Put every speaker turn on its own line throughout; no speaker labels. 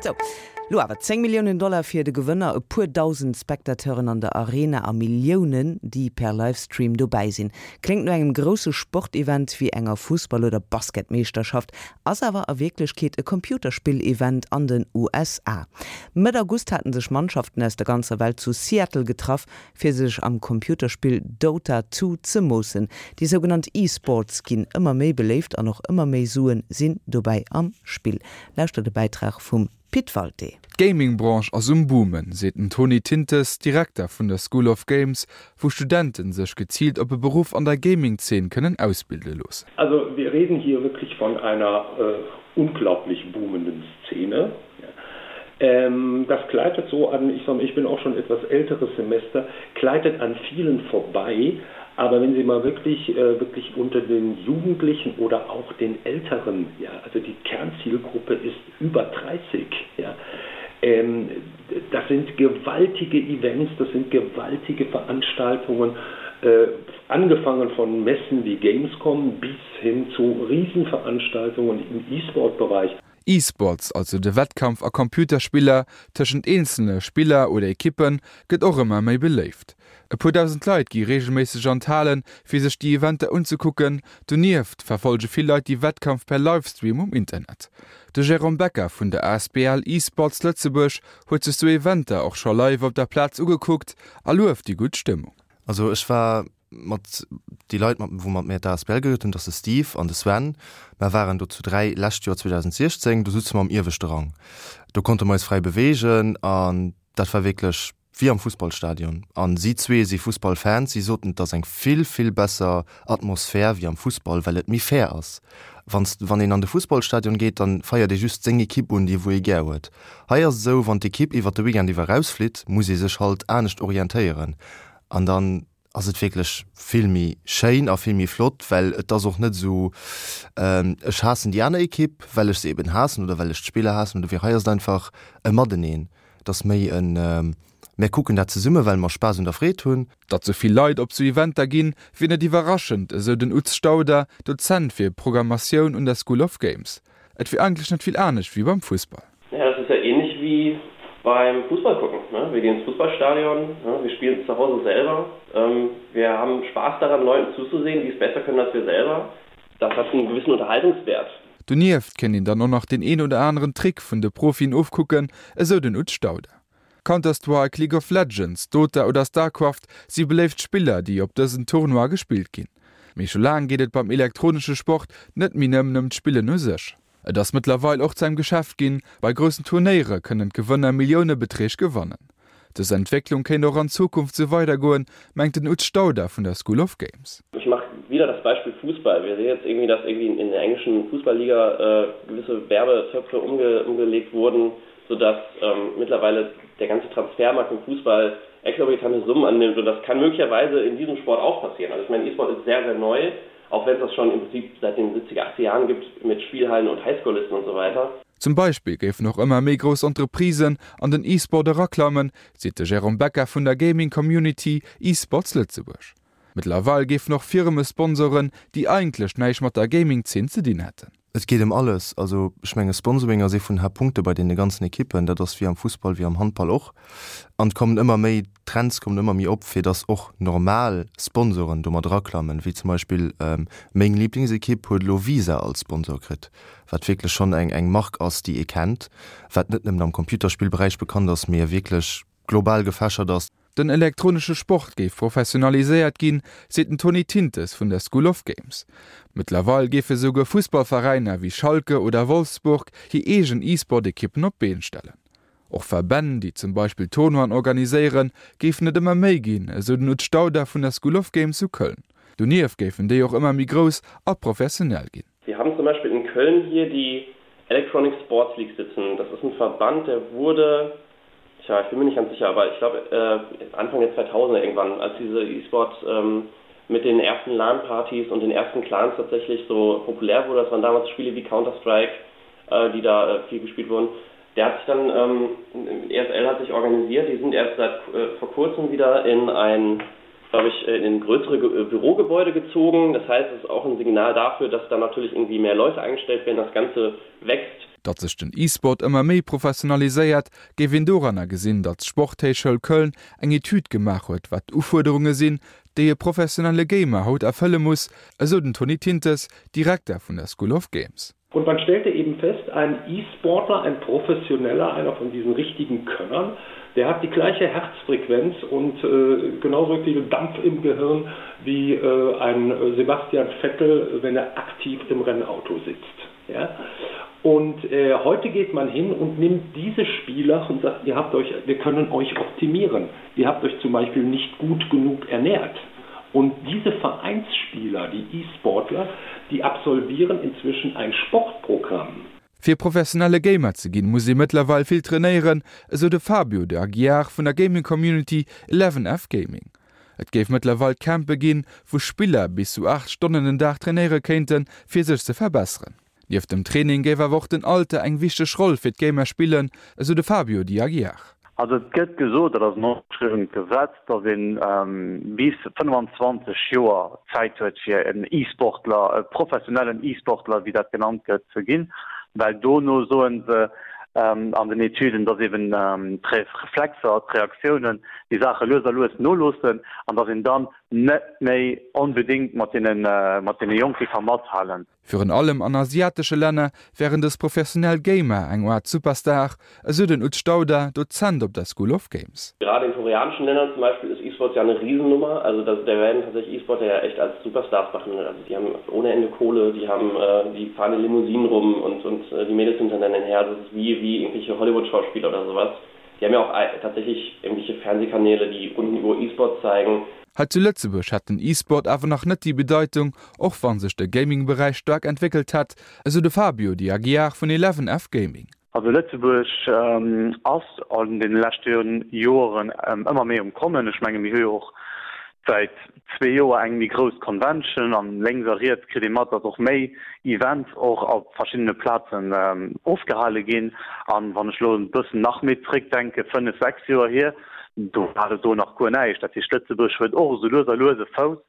Sou, lo awer 10 Milliounen Dollar fir de Gewënner, e puer dausend Spectateuren an der Arena a Milliounen, déi per Livestream dobäi sinn. Kléngt no engem grousse Sportevent wéi enger Fussball oder Basketmeeschterschaft, ass awer a Wierklechkeet e Computerspill-Event an den USA. Mëtt August haten sech Mannschaften aus der ganzer Welt zu Seattle getraff, fir sech am Computerspill Dota 2 ze moossen. Déi sougenannt E-Sports ginn ëmmer méi beléift an och ëmmer méi Suen sinn dobäi am Spill. Lauschtert e Bäitrag vum Pit Walté.
D'Gaming-Branche ass um Boomen, seet den Tony Tintes, Direkter vun der School of Games, wou Studenten sech geziilt op e Beruff an der Gaming-Zeen kënnen ausbilde loossen.
Also wir reden hier wirklich von einer unglaublich boomenden Szene. Ähm, das gleitet so an, ich sag mal, ich bin auch schon etwas älteres Semester, gleitet an vielen vorbei. Aber wenn Sie mal wirklich, äh, wirklich unter den Jugendlichen oder auch den Älteren, ja, also die Kernzielgruppe ist über 30, ja, ähm, das sind gewaltige Events, das sind gewaltige Veranstaltungen, äh, angefangen von Messen wie Gamescom bis hin zu Riesenveranstaltungen im E-Sport-Bereich.
E-Sports, also de Wettkampf a Computerspiller tëschent eenzele Spiller oder Ekippen, gëtt och ëmmer méi beléift. E puer dausend Leit gi reegelméisseg an d'Halen, fir sech déi Eventer unzekucken. Donieft verfollege vill Leit déi Wettkampf per Livestream um Internet. De Jérôme Becker vun der asbl eSports Lëtzebuerg huet sech sou Eventer och scho live op der Plaz ugekuckt a lueft déi gutt Stëmmung.
Also ech war mat déi Leit mat wou mat mär d'ASBL gegrënnt hunn, dat ass de Steve an de Sven, mer waren do zu 3 lescht Joer 2016, do sutze mer am ieweschte Rang, do konnte mer eis fräi beweegen an dat war wierklech wéi am Fussballstadion an si zwee si Fussballfans, si soten et ass eng vill vill besser Atmosphär wéi am Fussball, well et méi fair ass. Wann s wann een an de Fussballstadion geet, dann feiert ee just seng Ekipp un, déi wou ee gär huet. Hei ass et esou, wann d'Ekipp iwwert de Weekend iwwer erausflitt, muss ee sech halt anescht orientéieren an dann ass et wierklech vill méi schéin a vill méi flott, well et ass och net esou, ech haassen déi aner Ekipp, well ech se eben haassen oder well ech d'Spiller haassen oder wéi. Hei ass et einfach e Mateneen, et ass méi en mär kucken dat zesumme well mer Spaass un der Freed hunn.
Datt sou vill Leit op sou Eventer ginn, wier net iwwerraschend, esou den Utz Stauder, Dozent fir Programmatioun un der School of Games. Et wier eigentlech net vill anescht wéi beim Fussball.
Ja, das ist ja ähnlich wie beim Fußball gucken, ne? Wir gehen ins Fußballstadion, ne? Wir spielen es zu Hause selber. Ähm, wir haben Spaß daran, Leuten zuzusehen, die es besser können als wir selber. Das hat einen gewissen Unterhaltungswert.
Donieft kéint een dann och nach deen een oder aneren Trick vun de Profien ofkucken, esou den Utz Stauder. Counter-Strike, League of Legends, Dota oder Starcraft si beléift Spiller, déi op dësen Tournoie gespillt ginn. Mee scho laang geet et beim elektronesche Sport net méi nëmmen ëm d'Spillen u sech. Et ass mëttlerweil och zu engem Geschäft ginn, bei groussen Turnéiere kënnen d'Gewënner Milliounebeträg gewannen. Dës Entwécklung kéint och an Zukunft sou weidergoen, mengt den Utz Stauder vun der School of Games.
Ich mach wieder das Beispiel Fußball. Wir sehen jetzt irgendwie, dass irgendwie in der englischen Fußballliga gewisse Werbetöpfe umgelegt wurden, sodass mittlerweile der ganze Transfermarkt im Fußball exorbitante Summen annimmt und das kann möglicherweise in diesem Sport auch passieren. Also ich meine, E-Sport ist sehr, sehr neu, auch wenn es das schon im Prinzip seit den 70er, 80er Jahren gibt mit Spielhallen und Highschool-Listen und so weiter.
Zum Beispill géifen och ëmmer méi grouss Entreprisen an den E-Sport eraklammen, seet de Jérôme Becker vun der Gaming Community eSports Lëtzebuerg. Mëttlerweil géifen och Firme sponsoren, déi eigentlech näischt mat der Gaming-Zeen ze dinn hätten.
Et geet ëm alles. Also ech menge Sponsoring ass ee vun den Haaptpunkte bei deene ganzen Ekippen. Dat ass wéi am Fussball, wéi am Handball och. An et kommen ëmmer méi, d'Trends kommen ëmmer méi op, fir datt och normal Sponsoren do mat eraklammen, wéi zum Beispill meng Liblingsekipp huet elo Visa als Sponsor kritt, wat wierklech schonn eng eng Mark ass, déi ee kennt, wat net nëmmen am Computerspillberäich bekannt ass, mee wierklech global gefächert ass.
Den elektronesche Sport géif professionaliséiert ginn, seet den Tony Tintes vun der School of Games. Mëttlerweil géife souguer Fussballveräiner wéi Schalke oder Wolfsburg hir eegen E-Sport-Ekippen op d'Been stellen. Och Verbänn, déi zum Beispill Tournoien organiséieren, géifen et ëmmer méi ginn, esou den Utz Stauder vun der School of Games zu Köln. Donieft géifen déi och ëmmer méi grouss a professionell ginn.
Wir haben zum Beispiel in Köln hier die Electronic Sports League sitzen. Das ist ein Verband, der wurde Tja, ich bin mir nicht ganz sicher, aber ich glaube äh, Anfang der 2000er irgendwann, als diese E-Sport ähm, mit den ersten LAN-Partys und den ersten Clans tatsächlich so populär wurde. Das waren damals Spiele wie Counter-Strike, äh, die da äh, viel gespielt wurden. Der hat sich dann, ähm, ESL hat sich organisiert, die sind erst seit äh, vor kurzem wieder in ein, glaube ich, in ein größere Ge äh, Bürogebäude gezogen. Das heißt, es ist auch ein Signal dafür, dass da natürlich irgendwie mehr Leute eingestellt werden, das Ganze wächst.
Datt sech den E-Sport ëmmer méi professionaliséiert, géif een doranner gesinn, datt d'Sporthéichschoul Köln eng Etüd gemaach huet, wat d'Ufuerderunge sinn, déi e professionelle Gamer haut erfëlle muss, esou den Tony Tintes, Direkter vun der School of Games.
Und man stellte eben fest, ein E-Sportler, ein Professioneller, einer von diesen richtigen Könnern, der hat die gleiche Herzfrequenz und äh, genauso viel Dampf im Gehirn wie äh, ein Sebastian Vettel, wenn er aktiv im Rennauto sitzt. Ja? Und äh, heute geht man hin und nimmt diese Spieler und sagt, ihr habt euch, wir können euch optimieren. Ihr habt euch zum Beispiel nicht gut genug ernährt. Und diese Vereinsspieler, die E-Sportler, die absolvieren inzwischen ein Sportprogramm.
Fir professionelle Gamer ze ginn, muss ee mëttlerweil vill trainéieren, esou de Fabio de Aguiar vun der Gaming Community Eleven F Gaming. Et géif mëttlerweil Campe ginn, wou Spiller bis zu 8 Stonnen den Dag trainéiere kéinten, fir sech ze verbesseren. Nieft dem Training géif awer och den Alter eng wichteg Roll fir d'Gamer spillen, esou de Fabio de Aguiar.
Also et gëtt gesot, dat ass en ongeschriwwent Gesetz, datt ee bis 25 Joer Zäit huet fir en E-Sportler, e professionellen E-Sportler, wéi dat genannt gëtt, ze ginn, well dono soe se an den Etüden, datt eben d'Reflexer, d'Reaktiounen, déi Saache lues a lues noloossen an datt een dann net méi onbedéngt mat deene Jonke ka mathalen.
Virun allem an asiatesche Länner wären dës professionell Gamer eng Aart Superstar, esou den Utz Stauder, Dozent op der School of Games.
Gerade in koreanischen Ländern zum Beispiel ist E-Sports ja eine Riesennummer. Also da, da werden tatsächlich E-Sportler ja echt als Superstars behandelt. Also die haben ohne Ende Kohle, die haben, äh, die fahren in Limousinen rum und, und äh, die Mädels sind hinter denen her. Das ist wie, wie irgendwelche Hollywood-Schauspieler oder sowas. Die haben ja auch äh, tatsächlich irgendwelche Fernsehkanäle, die rund um E-Sports zeigen.
Hei zu Lëtzebuerg hätt den E-Sport awer nach net déi Bedeitung, och wa sech de Gaming-Beräich staark entwéckelt hätt, esou de Fabio Di Aguiar vun Eleven F Gaming.
Also Lëtzebuerg ass an deene leschte Joeren ëmmer méi um Kommen. Ech menge mir hu jo och säit zwee Joer eng méi grouss Convention an lénks a riets kritt ee mat, datt och méi Events och op verschiddene Plazen ofgehale ginn. An wann ech elo e bëssen nach méi zréckdenke, fënnef, sechs Joer hier, do war et do nach guer näischt. Dat heescht, Lëtzebuerg huet och esou lues a lues e Fouss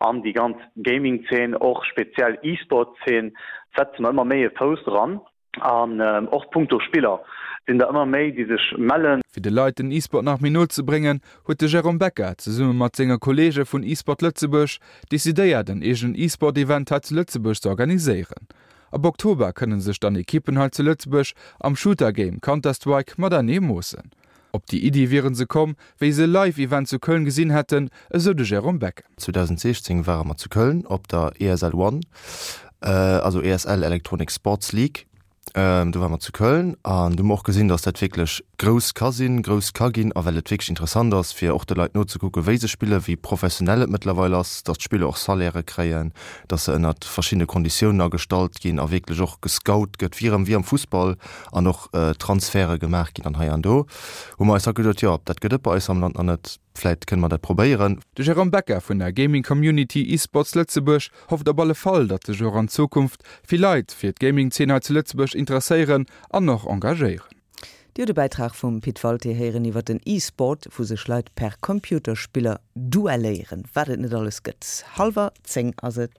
an déi ganz Gaming-Zeen, och speziell E-Sport-Zeen, setze mer ëmmer méi e Fouss eran. An och punkto Spiller sinn der ëmmer méi, déi sech mellen.
Fir de Leit den E-Sport nach méi no ze bréngen, huet de Jérôme Becker zesumme mat senge Kolleege vun E-Sport Lëtzebuerg decidéiert en eegenen E-Sport-Event hei zu Lëtzebuerg ze organiséieren. Ab Oktober kënne sech dann Ekippen hei zu Lëtzebuerg am Shooter-Game Counter-Strike matenee moossen. Op déi Iddi wiere se komm, wéi se e Live-Event zu Köln gesinn hätten, esou de Jérôme Becker.
2016 ware mer zu Köln op der ESL One, also ESL Electronic Sports League. Do ware mer zu Köln an do hu mer och gesinn, datt dat wierklech grouss ka sinn, grouss ka ginn a well et wierklech interessant ass, fir och de Leit nozekucken, wéi se spillen, wéi professionell et mëttlerweil ass, datt d'Spiller och Salairë kréien, datt se ënnert verschiddene Konditiounen agestallt ginn a wierklech och gescout gëtt, wéi erëm wéi am Fussball an och Transferte gemaach ginn an hei an do hu mer eis da geduet, jo, dat gëtt et bei eis am Land nach net, vläit kënne mer dat probéieren.
De Jérôme Becker vun der Gaming Community eSports Lëtzebuerg hofft op alle Fall, datt sech och an Zukunft vill Leit fir d'Gaming-Zeen hei zu Lëtzebuerg interesséieren an och engagéieren.
Dir hutt e Bäitrag vum Pit Walté héieren iwwer den E-Sport, wou sech Leit per Computerspiller duelléieren. Wat et net alles gëtt. Hallwer 10 ass et.